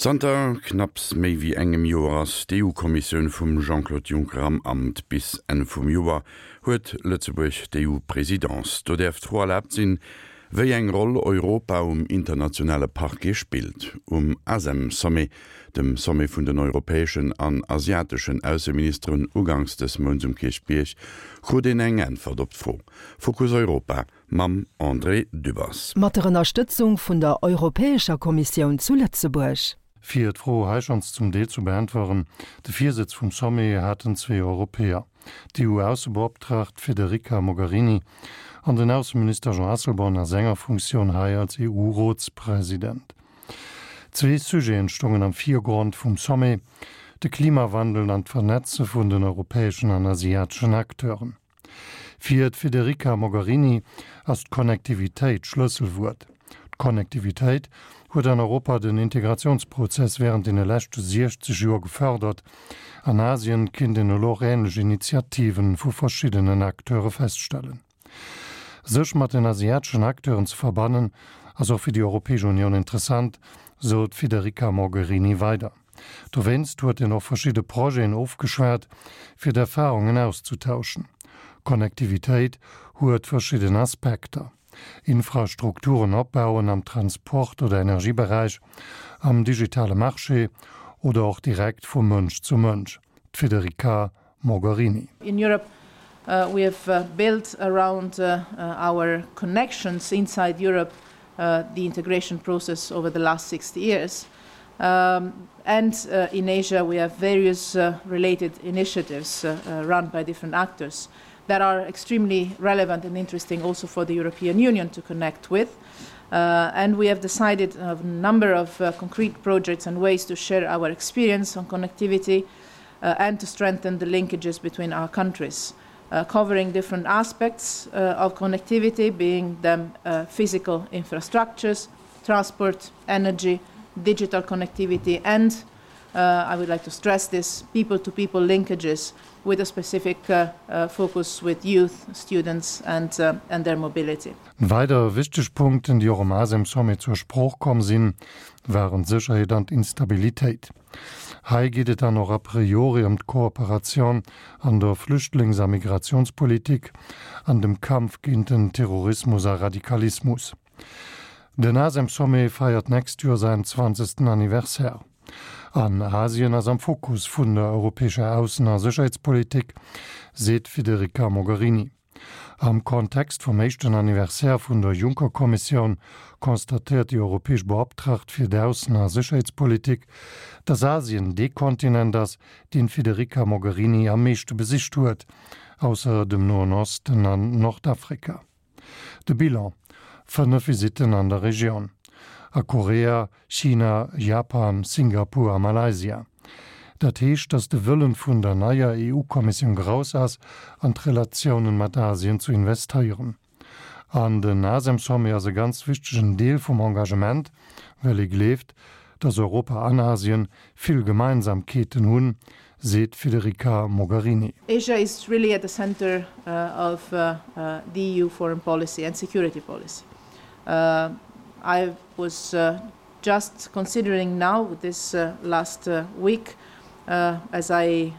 Zanter knapps méi wéi engem Joer ass d'EU-Kommissioun vum Jean-Claude Juncker am Amt. Bis Enn vum Joer huet Lëtzebuerg d'EU-Presidence. Do däerf d'Fro erlaabt sinn, wéi eng Roll Europa um internationale Parquet spillt. Um ASEM-Sommet, dem Sommet vun den europäeschen an asiateschen Ausseministeren uganks dës Mounts um Kierchbierg, krut een eng Äntwert op d'Fro. Fokus Europa mam André Dübbers. Mat der Ënnerstëtzung vun der Europäescher Kommissioun zu Lëtzebuerg. Fir d'Fro hei schonns zum Deel zu beäntweren, De Virsëtz vum Sommet haten zwee Europäer, d'EU-Aussebeoptraagt Federica Mogherini an den Ausseminister Jean Asselborn a senger Funktioun hei als EU-Rotspresident. Zwee Sujeten stongen am Virgrond vum Sommet, de Klimawandel an d'Vernetze vun den europäeschen an asiateschen Acteuren. Fir d'Federica Mogherini ass d'Connectivitéit d'Schlësselwuert. D'Connectivitéit huet an Europa den Integratiounsprozess wärend deene leschte 60 Joer gefërdert. An Asien kinnt een elo och änlech Initiative vu verschiddenen Acteure feststellen. Sech mat den asiateschen Acteuren ze verbannen, ass och fir déi Europäesch Unioun interessant, sou d'Federica Mogherini weider. Dowéinst huet en och verschidde Projeten ofgeschwat, fir d'Erfarungen auszetauschen. Connectivitéit huet verschidden Aspekter, Infrastrukturen opbauen am Transport oder Energieberäich, am digitale Marché oder och direkt vu Mënsch zu Mënsch. D'Federica Mogherini. In Europe we have built around our connections inside Europe the integration process over the last 60 years. And in Asia we have various related initiatives run by different actors that are extremely relevant and interesting also for the European Union to connect with. And we have decided a number of concrete projects and ways to share our experience on connectivity and to strengthen the linkages between our countries, covering different aspects of connectivity, being them physical infrastructures, transport, energy, digital connectivity and I would like to stress this people to people linkages with a specific focus with youth, students and and their mobility. Weider wichteg Punkten, déi och um ASEM-Sommet zur Sprooch komm sinn, waren d'Sécherheet an d'Instabilitéit. Hei geet et dann och a priori ëm d'Kooperatioun an der Flüchtlings a Migrationspolitik an dem Kampf géint den Terrorismus a Radikalismus. Den ASEM-Sommet feiert d'nächst Joer säin zwanzegsten Anniversaire. An Asien ass am Fokus vun der europäescher Aussen a Sécherheetspolitik, seet d'Federica Mogherini. Am Kontext vum éischten Anniversaire vun der Juncker-Kommissioun constatéiert déi europäesch Beoptraagt fir d'Aussen a Sécherheetspolitik, datt Asien dee Kontinent ass, deen d'Federica Mogherini am meeschte besicht huet, ausser dem Noen Osten an Nordafrika. De Bilan, 5 Visitten an der Regioun, a Korea, China, Japan, Singapur a Malaysia. Dat heescht, datt de Wëllen vun der neier EU-Kommissioun grouss ass, an d'Relatiounen mat Asien zu investéieren. An den ASEM-Sommet ass e ganz wichtegen Deel vum Engagement, well ee gleeft, datt Europa an Asien vill Gemeinsamkeeten hunn, seet d'Federica Mogherini. Asia is really at the center of the EU foreign policy and security policy. I was just considering now this last week as I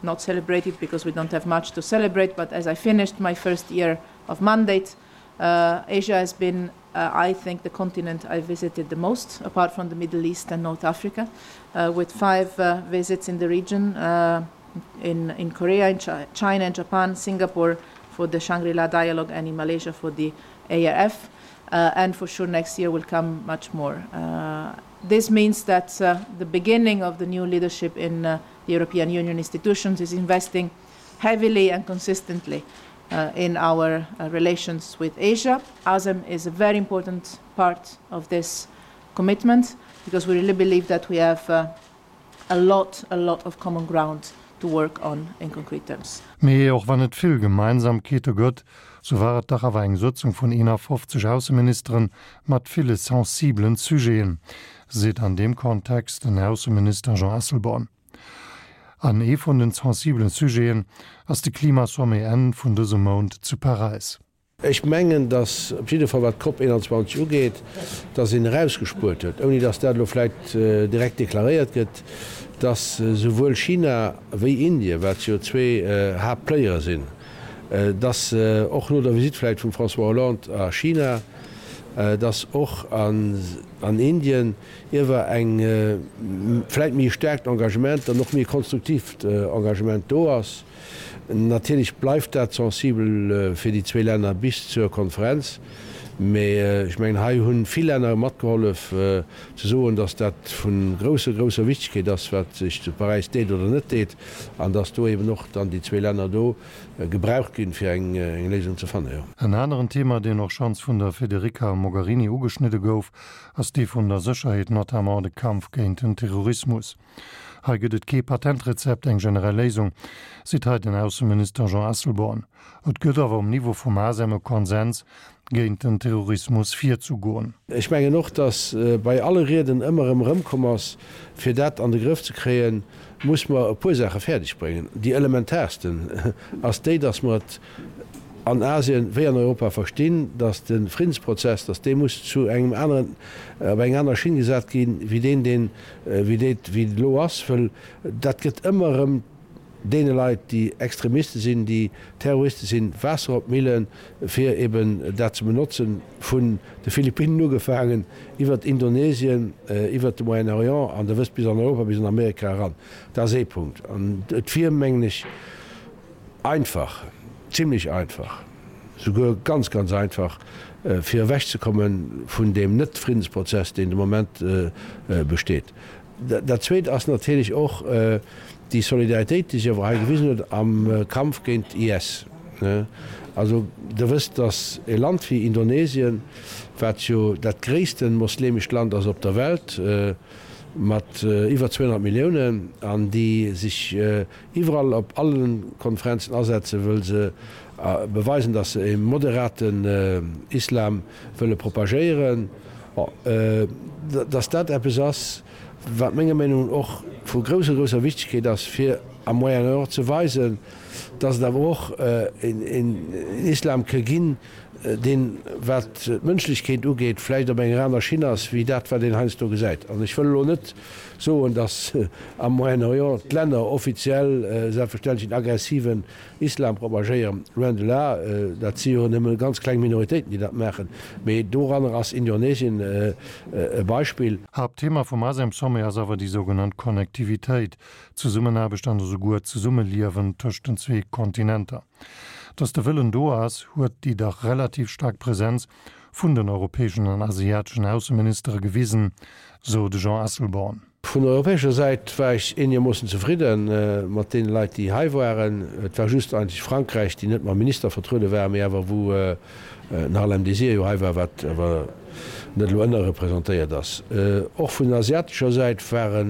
not celebrated because we don't have much to celebrate, but as I finished my first year of mandate, Asia has been I think the continent I visited the most apart from the Middle East and North Africa with five visits in the region in in Korea, in China and Japan, Singapore for the Shangri-La dialogue and in Malaysia for the ARF and for sure next year will come much more. This means that the beginning of the new leadership in the European Union institutions is investing heavily and consistently in our relations with Asia. ASEM is a very important part of this commitment because we really believe that we have a lot, a lot of common ground to work on in concrete terms. Mee och wann et vill Gemeinsamkeete gëtt, sou war et dach awer eng Sëtzung vun 51 Ausseministeren mat ville sensibelen Sujeten, seet an deem Kontext den Ausseminister Jean Asselborn. An ee vun den sensibelen Sujeten ass de Klimasommet Enn vun dësem Mount zu Paräis. Ech mengen, datt op jidde Fall wat d'COP 21 ugeet, datt een erausgespuert huet, ouni datt dat elo vläicht direkt deklaréiert gëtt, datt souwuel China wéi Indien, wat jo zwee Haaptplayere sinn, datt och no der Visitt vläicht vum François Hollande a China, datt och an Indien iewer eng vläicht méi e staarkt Engagement an och méi e konstruktivt Engagement do ass. Natierlech bleift dat sensibel fir déi zwee Länner bis zur Konferenz, mee ech mengen, hei hu vill Länner matgehollef ze soen, datt dat vu grousser, grousser Wichtegkeet ass, wat sech zu Paräis deet oder net deet, an datt do eben och dann déi zwee Länner do gebraucht ginn, fir eng Léisung ze fannen, jo. En aneren Thema, deen och schonns vun der Federica Mogherini ugeschnidde gouf, ass dee vun der Sécherheet, notamment de Kampf géint den Terrorismus. Hei gëtt et kee Patentrezept, eng generell Léisung, seet hei den Ausseminister Jean Asselborn. Et gëtt awer um Niveau vum ASEM e Konsens, géint den Terrorismus virzegoen. Ech mengen och, datt bei alle Rieden ëmmer erëm erëmkomm ass, fir dat an de Grëff ze kréien, muss mer e puer Saache fäerdeg bréngen. Déi elementaarsten ass déi, datt mer et an Asien wéi an Europa verstinn, datt de Friddensprozess, datt dee muss zu engem aneren, op eng aner Schinn gesat ginn, wéi deen, deen, wéi dee, wéi et elo ass, wëll dat gëtt ëmmer erëm deene Leit, déi Extremiste sinn, déi Terroriste sinn, Waasser op d'Millen, fir eben dat ze benotzen, vun de Philippinnen ugefaangen, iwwert Indonesien, iwwert de Moyen-Orient an Der wësst, bis an Europa, bis an Amerika eran. Dat ass ee Punkt. An et wier, mengen ech, einfach, zimlech einfach, souguer ganz, ganz einfach, fir ewechzekomme vun deem Net-Friddensprozess, deen de Moment besteet. Dat Zweet ass natierlech och déi Solidaritéit, déi sech awer hei gewisen huet am Kampf géint IS. Also Der wësst, datt e Land wéi Indonesien, wat jo dat gréisste moslemescht Land ass op der Welt, mat iwwer 200 Milliounen, an déi sech iwwerall op alle Konferenzen asetzen, wëll se beweisen, datt se e moderaten Islam wëlle propagéieren, bon, datt dat eppes ass, wat menger Meenung no och vu grousser, grousser Wichtegkeet ass, fir am Moyen-Orient ze weisen, datt et awer och een Islam ke ginn, deen, wat d'Mënschlechkeet ugeet, vläicht op enger aner Schinn ass, wéi dat, wat een heiansdo gesäit. An ech wëll elo net soen, datt am Moyen-Orient d'Länner offiziell selbstverständlech en aggressiven Islam propagéieren, loin de là, dat si jo nëmme ganz kleng Minoritéiten, déi dat maachen, mee doranner ass Indonesien e Beispill. Haaptthema vum ASEM-Sommet ass awer déi sougenannt Connectivitéit, d'Zesummenaarbecht an esouguer d'Zesummeliewen tëscht den zwee Kontinenter. Datt de Wëllen do ass, huet déi dach relativ staark Presenz vun den europäeschen an asiateschen Ausseministere gewisen, sou de Jean Asselborn. Vun europäescher Säit war ech eenegermoossen zefridde mat deene Leit, déi hei waren. Et war just eigentlech Frankräich, déi net mam Minister vertruede war, mee awer wou den Harlem Désir jo hei war, wat awer net elo ënnerrepresentéiert ass. Och vun asiatescher Säit ware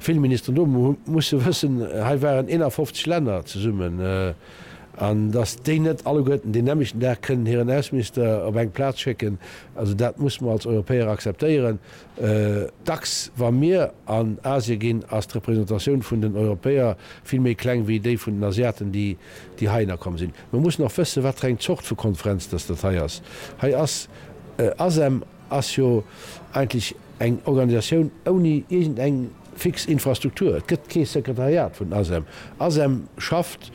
vill Ministeren do. Mer musse wëssen, hei waren 51 Länner zesummen, an datt déi net alleguerten deen nämmlechten Dag kënnen hiren Ausseminister op eng Plaz schécken, also dat musse mer als Europäer akzeptéieren. Dacks wa mir an Asie ginn, ass d'Representatioun vun den Europäer vill méi kleng wéi déi vun den Asiaten, déi heihinner komm sinn. Mer mussen och wëssen, wat fir eng Zort vu Konferenz dass dat hei ass. Hei ass ASEM ass jo eigentlech eng Organisatioun ouni iergendeng fix Infrastruktur. Et gëtt kee Sekretariat vun ASEM. ASEM schafft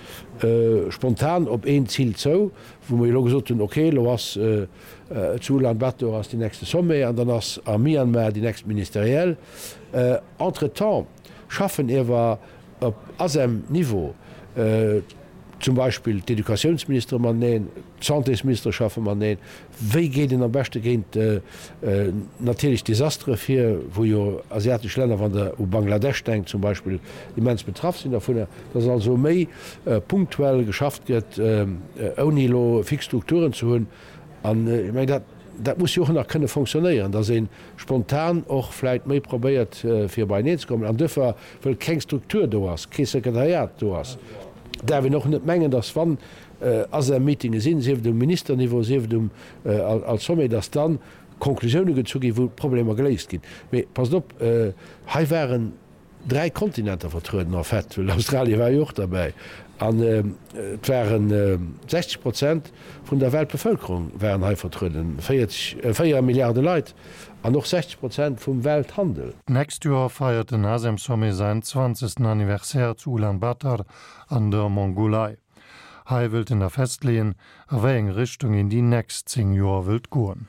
spontan op een Zil zou, wou mer jo elo gesot hunn, okay, elo ass Zu Ulan Bator ass déi nächste Sommet an dann ass a Myanmar déi nächst Ministerielle. Entretemps schaffen iewer op ASEM-Niveau zum Beispill d'Educatiounsministere mateneen, d'Santésministere schaffe mateneen. Wéi geet een am beschte géint natierlech Desastere vir, wou jo asiatesch Länner, wann Der u Bangladesch denkt zum Beispill, immens betraff sinn dovunner. Dass also méi punktuell geschafft gëtt, ouni elo fix Strukturen ze hunn. An ech mengen, dat, dat muss jo och nach kënne fonctionnéieren, dass ee spontan och vläicht méi probéiert, fir beieneen ze kommen. An duerfir, wëll keng Struktur do ass, kee Sekretariat do ass, däerf een och net mengen, dass wann ASEM-Meetinge sinn, sief et um Ministerniveau, sief et um als Sommet, dass dann Konklusioune gezu ginn, wou d'Problemer geléist ginn. Mee passt op, hei waren, Dräi Kontinenter vertrueden en fait, well Australien war jo och derbäi. An et ware 60 Prozent vun der Weltbevëlkerung waren hei vertrueden, 40, 4 Milliarde Leit, an och 60 Prozent vum Welthandel. D'nächst Joer feiert den ASEM-Sommet säin 20. Anniversaire zu Ulaanbaatar an der Mongolei. Hei wëllt en da festleeën, a wéi eng Richtung een déi nächst 10 Joer wëllt goen.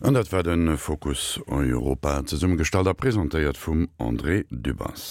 An dat war de Fokus Europa, zesummegestallt a presentéiert vum André Dübbers.